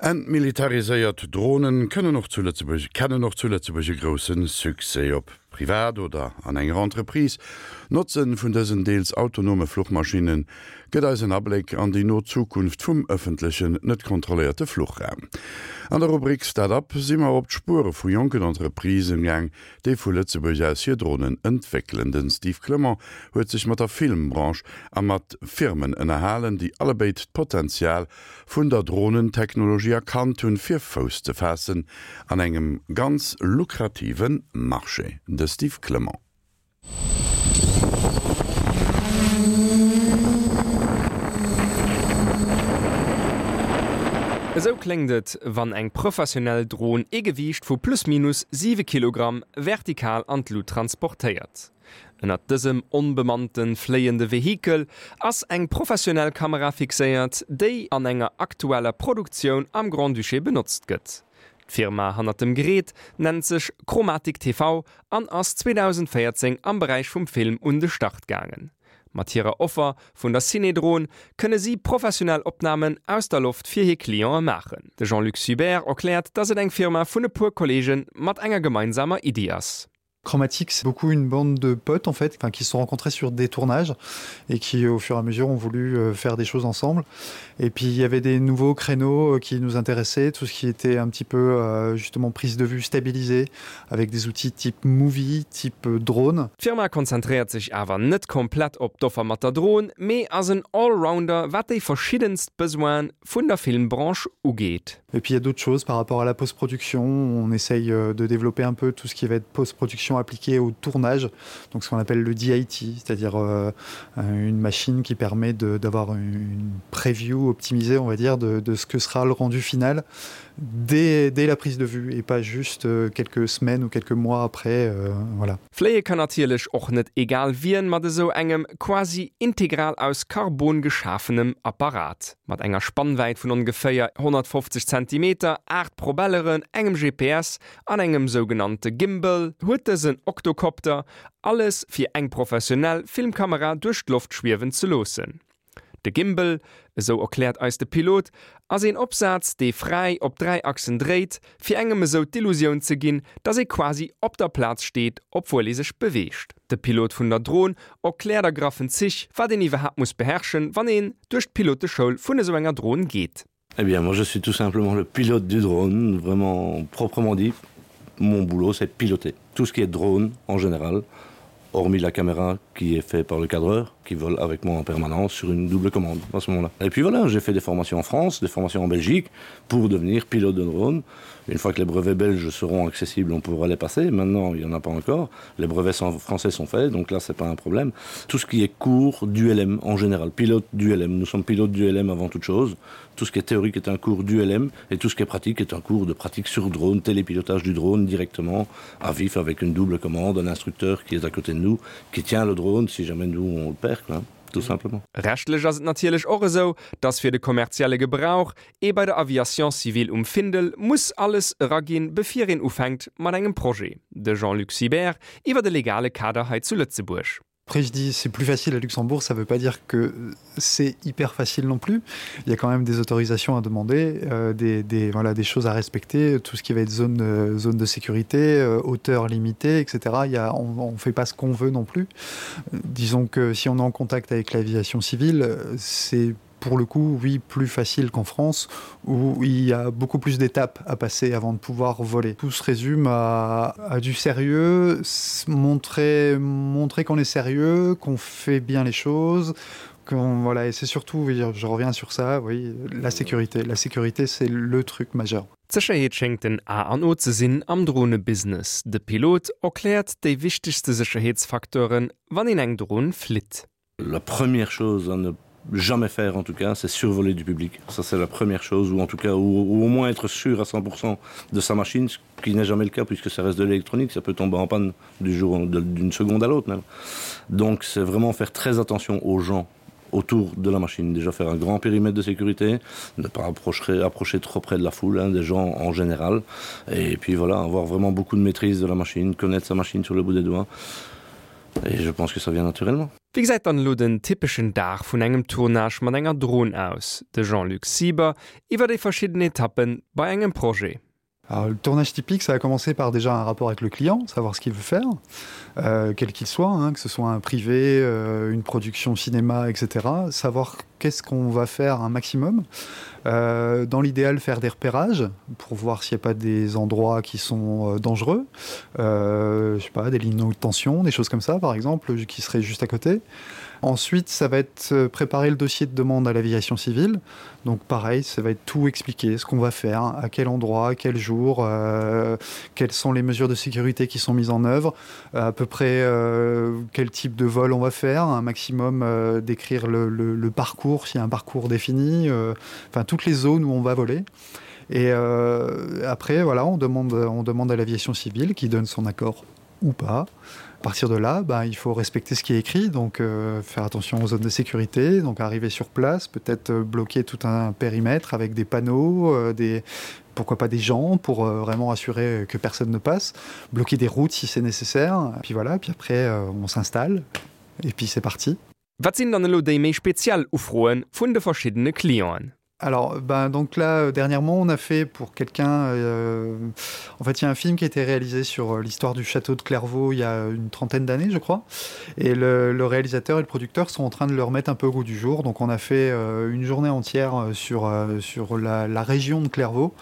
Entmilitariséiert Dronen kënnen och zu Lëtzebuerg kennen och zu Lëtzebuerg e grousse Succès. Ob privat oder an enger Entreprise, d'Notze vun dësen deels autonome Fluchmaschinne gëtt eis en Abléck an déi no Zukunft vum ëffentlechen, net kontrolléierte Fluchraum. An der Rubrik Start-up si mer op d'Spuere vu jonken Entreprisen gaang, déi vu Lëtzebuerg aus hir Dronen entwéckelen. Den Steve Clement huet sech mat der Filmbranche a mat Firmen ënnerhalen, déi allebéid d'Potenzial vun der Dronentechnologie erkannt hunn, fir Fouss ze faassen an engem ganz lukrative Marché. De Steve Clement. Esou kléngt et, wann eng professionell Dron ee Gewiicht vu plus minus 7 Kilogramm vertikal an d'Lut transportéiert. Ënnert dësem onbemannte fléiende Vehikel ass eng professionell Kamera fixéiert, déi an enger aktueller Produktioun am Grand-Duché benotzt gëtt. D'Firma hannert dem Gerät nennt sech Chromatic TV an ass 2014 am Beräich vum Film un de Start gaangen. Mat hirer Offer vun der Cinedron kënne si professionell Opnamen aus der Loft fir hir Cliente maachen. De Jean-Luc Subert erkläert, datt et eng Firma vun e puer Kolleege mat enger gemeinsamer Iddi ass. Chromatique, c'est beaucoup une bande de potes en fait, enfin, qui se sont rencontrés sur des tournages et qui au fur et à mesure ont voulu euh, faire des choses ensemble. Et puis il y avait des nouveaux créneaux euh, qui nous intéressaient, tout ce qui était un petit peu euh, justement prise de vue stabilisée avec des outils type movie, type drone. D'Firma konzentréiert sech awer net komplett op d'Offer mat der Dron, mee ass en Allrounder wat déi verschiddenst Besoine vun der Filmbranche ugeet. Et puis il y a d'autres choses par rapport à la postproduction, on essaye euh, de développer un peu tout ce qui va être postproduction appliquée au tournage, donc ce qu'on appelle le DIT, c'est-à-dire euh, une machine qui permet d'avoir une preview optimisée, on va dire, de, de ce que sera le rendu final dès, dès la prise de vue et pas juste euh, quelques semaines ou quelques mois après euh, voilà. Fléie kann natierlech och net egal wien mat esou engem quasi integral aus Karbon geschafenem Apparat. Mat enger Spannwäit vun ongeféier 150 Zentimeter, 8 Probelleren, engem GPS an engem sougenannte Gimbal huet dësen Oktokopter alles fir eng professionell Filmkamera duerch d'Loft schwiewen ze loossen. De Gimbal, esou erkläert eis de Pilot, ass een Opsaz, dee fräi op 3 Achsen dréit, fir engem esou d'Illusioun ze ginn, dass ee quasi op der Plaz steet, obwuel ee sech beweegt. De Pilot vun der Dron erkläert a graffen Zich, wat een iwwerhaapt muss beherrschen, wann een duerch d'Piloteschoul vun esou enger Dron geet. Eh bien moi je suis tout simplement le pilote du drone, vraiment proprement dit. Mon boulot c'est piloter tout ce qui est drone en général, hormis la caméra qui est fait par le cadreur qui vole avec moi en permanence sur une double commande à ce moment-là. Et puis voilà, j'ai fait des formations en France, des formations en Belgique pour devenir pilote de drone. Une fois que les brevets belges seront accessibles, on pourra les passer. Maintenant, il n'y en a pas encore. Les brevets français sont faits, donc là c'est pas un problème. Tout ce qui est cours du LM en général, pilote du LM. Nous sommes pilotes du LM avant toute chose. Tout ce qui est théorique est un cours du LM et tout ce qui est pratique est un cours de pratique sur drone, télépilotage du drone directement à vif avec une double commande, un instructeur qui est à côté de nous, qui tient le drone si jamais nous on le perd quoi, tout simplement. Rechtlech ass et natierlech och esou, dass fir de kommerzielle Gebrauch ee bei der Aviation civile um Findel muss alles eraginn, bevir een ufänkt mat engem Projet. De Jean-Luc Sibert iwwer de legale Kader hei zu Lëtzebuerg. Après je dis c'est plus facile à Luxembourg, ça veut pas dire que c'est hyper facile non plus. Il y a quand même des autorisations à demander, euh, des, des, voilà, des choses à respecter, tout ce qui va être zone, euh, zone de sécurité, euh, hauteur limitée, etc. Il y a, on ne fait pas ce qu'on veut non plus. Disons que si on est en contact avec l'aviation civile, c'est pour le coup oui plus facile qu'en France où il y a beaucoup plus d'étapes à passer avant de pouvoir voler. Tout se résume à, à du sérieux, montrer montrer qu'on est sérieux, qu'on fait bien les choses, qu'on voilà et c'est surtout oui, je reviens sur ça oui la sécurité la sécurité c'est le truc majeur. D'Sécherheet schéngt den A an O ze sinn am Dronebusiness. De Pilot erkläert déi wichtegste Sécherheetsfacteuren, wann een eng Dron flitt. La première chose à ne jamais faire en tout cas, c'est survoler du public. Ça c'est la première chose ou en tout cas ou, ou au moins être sûr à 100% de sa machine, ce qui n'est jamais le cas puisque ça reste de l'électronique, ça peut tomber en panne du jour d'une seconde à l'autre même. Donc c'est vraiment faire très attention aux gens autour de la machine déjà faire un grand périmètre de sécurité ne pas approcher approcher trop près de la foule hein, des gens en général et puis voilà avoir vraiment beaucoup de maîtrise de la machine connaître sa machine sur le bout des doigts et je pense que ça vient naturellement. Wéi gesäit dann elo den typeschen Dag vun engem Tournage mat enger Dron aus? De Jean-Luc Sieber iwwer déi verschidden Etappen bei engem Projet. Alors, le tournage typique, ça a commencé par déjà un rapport avec le client, savoir ce qu'il veut faire, euh, quel qu'il soit, hein, que ce soit un privé, euh, une production cinéma, etc. Savoir qu'est-ce qu'on va faire un maximum. Euh, dans l'idéal, faire des repérages pour voir s'il n'y a pas des endroits qui sont euh, dangereux, euh, je sais pas, des lignes de tension, des choses comme ça, par exemple, qui seraient juste à côté. Ensuite, ça va être euh, préparer le dossier de demande à l'aviation civile. Donc pareil, ça va être tout expliquer, ce qu'on va faire, à quel endroit, quel jour, euh, quelles sont les mesures de sécurité qui sont mises en œuvre, à peu près euh, quel type de vol on va faire, un maximum euh, d'écrire le, le, le parcours, s'il y a un parcours défini, euh, enfin toutes les zones où on va voler. Et euh, après, voilà, on demande, on demande à l'aviation civile qui donne son accord ou pas. À partir de là, ben, il faut respecter ce qui est écrit, donc euh, faire attention aux zones de sécurité, donc arriver sur place, peut-être euh, bloquer tout un périmètre avec des panneaux, euh, des, pourquoi pas des gens pour euh, vraiment assurer que personne ne passe, bloquer des routes si c'est nécessaire, puis voilà, puis après euh, on s'installe et puis c'est parti. Wat sinn dann elo déi méi speziell Ufroe vun de verschiddene Clienten? Alors ben, donc là euh, dernièrement on a fait pour quelqu'un euh, en fait il y a un film qui a été réalisé sur euh, l'histoire du château de Clairvaux il y a une trentaine d'années je crois et le, le réalisateur et le producteur sont en train de le remettre un peu au goût du jour donc on a fait euh, une journée entière euh, sur, euh, sur la, la région de Clairvaux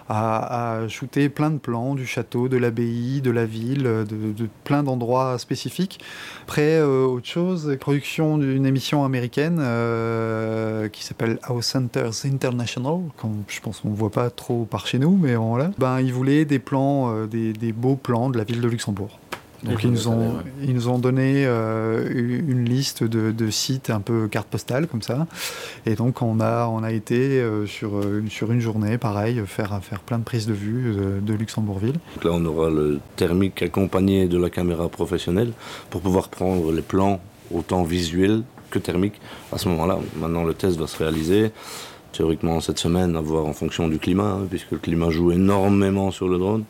à, à shooter plein de plans du château de l'abbaye de la ville de, de plein d'endroits spécifiques après euh, autre chose production d'une émission américaine euh, qui s'appelle House Centers International quand je pense on voit pas trop par chez nous mais on là ben ils voulaient des plans euh, des, des beaux plans de la ville de Luxembourg Donc ils nous ont, ouais. ils nous ont donné euh, une liste de, de sites un peu carte postale comme ça. Et donc on a, on a été euh, sur, euh, sur une journée pareil faire, faire plein de prises de vue de, de Luxembourgville. Donc là on aura le thermique accompagné de la caméra professionnelle pour pouvoir prendre les plans autant visuels que thermiques à ce moment là. Maintenant le test va se réaliser théoriquement cette semaine à voir en fonction du climat hein, puisque le climat joue énormément sur le drone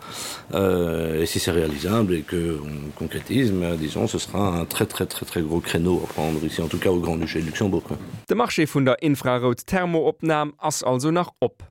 euh, et si c'est réalisable et que on concrétise mais disons ce sera un très très très très gros créneau à prendre ici en tout cas au grand duché de luxembourg quoi. De Marché vun der Infrarout-Thermoopnam ass also nach op.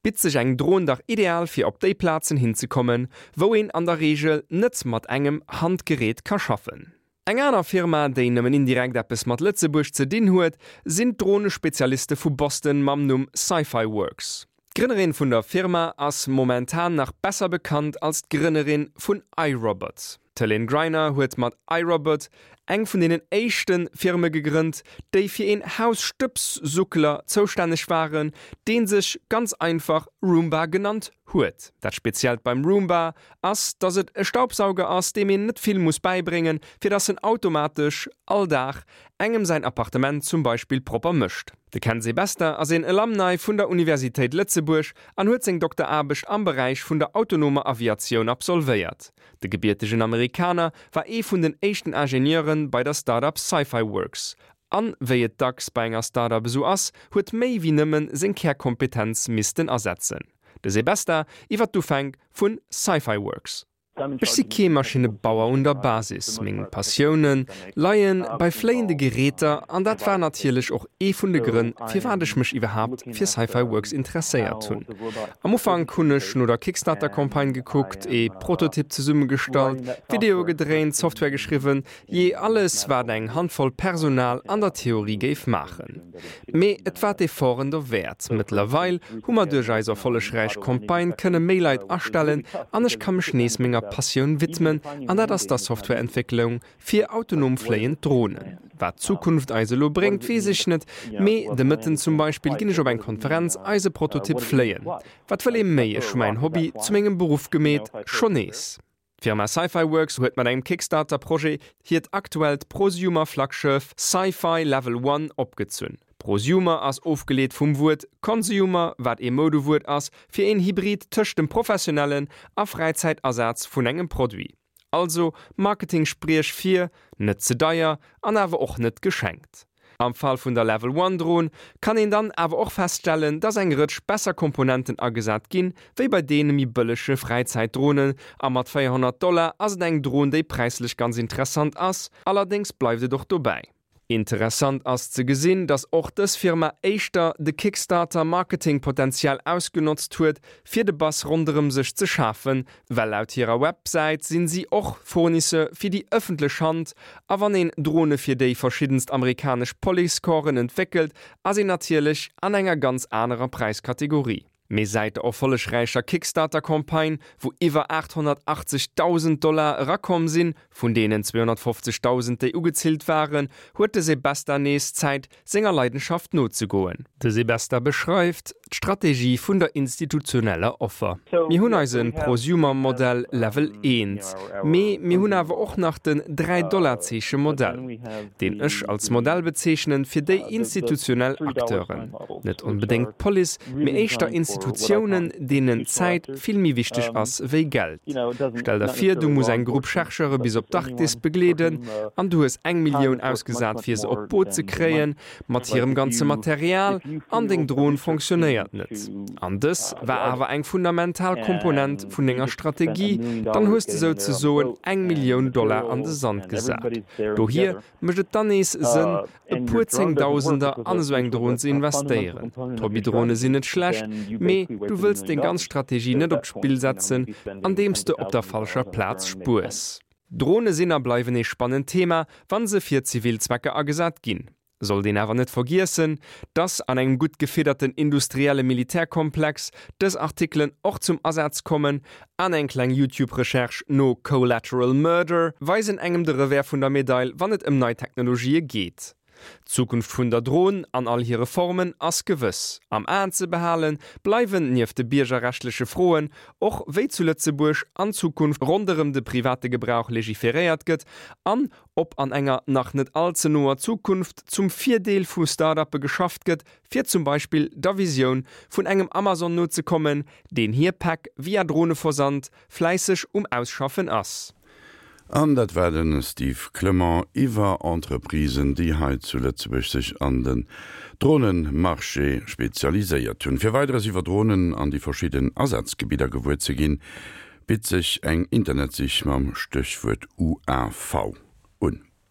Bitt sech eng Dron dach ideal fir op déi Plazen hinzekommen, wou een an der Reegel net mat engem Handgerät ka schaffen. Eng aner Firma, déi nëmmen indirekt eppes mat Lëtzebuerg ze dinn huet, sinn d'Dronespezialiste vu Boston mam Numm Sci-Fi Works. D'Grënnerin vun der Firma ass momentan nach besser bekannt als d'Grënnerin vun iRobot. D'Helene Greiner huet mat iRobot eng vun deenen éischte Firme gegrënnt, déi fir een Hausstëbssuckler zoustänneg waren, dee sech ganz einfach Roomba genannt huet. Dat Speziellt beim Roomba ass, dass et e Staubsauger ass, deem een net vill muss bäibréngen, fir dass en automatesch all Dag engem säin Appartement zum Beispill propper mécht. De Ken Sebesta ass een Alumni vun der Universitéit Lëtzebuerg an huet seng Dokteraarbecht am Beräich vun der autonomer Aviatioun absolvéiert. De gebiertegen Amerikaner war ee vun den éischten Ingenieure bei der Start-up Sci-Fi Works an, wéi et dacks bei enger Start-up esou ass, huet méi wéi nëmmen seng Kärkompetenz missten asetzen. De Sebesta iwwer d'Ufänk vu Sci-Fi Works. Ech si kee Maschinnebauer un der Basis, meng Passioune leie bei fléiende Geräter an dat war natierlech och ee vun de Grënn, firwat ech mech iwwerhaapt fir Sci-Fi Works interesséiert hunn. Am Ufank hunn ech no der Kickstarter-Campagne gekuckt, ee Prototyp zesummegestallt, Videoe gedréint, Software geschriwwen, Jee, alles wat eng Handvoll Personal an der Theorie géif maachen. Mee et war d'Efforten derwäert. Mëttlerweil hu mer duerch eis erfollegräich Campagne kënne méi Leit astellen an ech ka mech nees menger Passioun widmen an dat ass der Softwareentwécklung fir autonom fléiend Dronen. Wat d'Zukunft eis elo bréngt, weess ech net, mee de Mëtten zum Beispill ginn ech op eng Konferenz eise Prototyp fléien. Wat wëll ee méi, ech hu mäin Hobby zu mengem Beruff gemeet, schonn nees. D'Firma Sci-Fi Works huet mat engem Kickstarter-Projet hiert aktuellt Prosumer-Flaggschëff Sci-Fi Level One opgezunn. Prosumer ass ofgeleet vum Wuert Consumer, wat ee Moudewuert ass fir een Hybrid tëscht dem professionellen a Fräizäitasaz vun engem Produit. Also Marketing-Spriech fir, net ze deier an awer och net geschenkt. Am Fall vun der Level One Dron kann een dann awer och feststellen, dass eng Rëtsch besser Komponenten agesat ginn, wéi bei deene méi bëllege Fräizäitdronen, a mat 400 Dollar ass et eng Dron, déi präislech ganz interessant ass, allerdéngs bleift et och dobäi. Interessant ass ze gesinn, dass och dës Firma éischter de Kickstarter Marketing-Potential ausgenotzt huet, fir de Buzz ronderëm sech ze schafen, well laut hirer Websäit sinn si och Fournisseur fir déi ëffentlech Hand, a wann een Drone fir déi verschiddenst amerikanesch Policecorpsen entwéckelt, ass een natierlech an enger ganz anerer Präiskategorie. Mee säit der erfollegräicher Kickstarter-Campagne, wou iwwer 880.000 Dollar erakomm sinn, vun deenen 250.000 déi ugezillt waren, huet de Sebesta nees Zäit, senger Leidenschaft nozegoen. De Sebesta beschreift d'Strategie vun der institutioneller Offer. Mir hunn eise Prosumer-Modell Level 1, mee mir hunn awer och nach den Dräi-Dollar-Zeeche-Modell, deen ech als Modell bezeechnen fir déi institutionell Acteuren, net onbedéngt d'Police, mee éischter Institutiounen, deenen Zäit vill méi wichteg ass wéi Geld. Stell der vir, du muss eng Grupp Chercheure bis op d'Arktis begleeden an du hues eng Millioun ausgesat fir se op d'Boot ze kréien, mat hirem ganze Material, an deng Dron fonctionnéiert net, an dës war awer eng fundamental Komponent vun denger Strategie, dann hues de souzesoen eng Millioun Dollar an de Sand gesat. Dohier mécht et dann nees Sënn, e puer Zéngdausender an esou eng Dron ze investéieren. D'Hobbydrone sinn net schlecht, mee du wëlls deng ganz Strategie net op d'Spill setzen, andeems de op der falscher Plaz spuers. Drone sinn a bleiwen ee spannend Thema, wa se fir zivil Zwecker agesat ginn. Sollt een awer net vergiessen, dass an engem gutt gefidderten industrielle Militärkomplex dës Artikelen och zum Asaz kommen an eng kleng YouTube-Recherche no Collateral Murder weisen engem de Revers vun der Medail, wann et ëm nei Technologië geet. D'Zukunft vun der Dron an all hire Formen ass gewëss. Am Aen ze behale bleiwen nieft de biergerrechtleche Froen och, wéi zu Lëtzebuerg an Zukunft ronderëm de private Gebrauch legiferéiert gëtt an ob an enger nach net all ze noer Zukunft zum Virdeel vu Start-uppe geschafft gëtt, fir zum Beispill der Visioun vun engem Amazon nozekommen, deen hir Päck via Droneversand fläisseg um Ausschaffen ass. An dat war de Steve Clement iwwer Entreprisen, déi hei zu Lëtzebuerg sech an den Dronemarché spezialiséiert hunn. Fir Weideres iwwer Dronen an déi verschidden Asazgebidder gewuer ze ginn, bitt sech eng Internetsich mam Stéchwuert UAV un.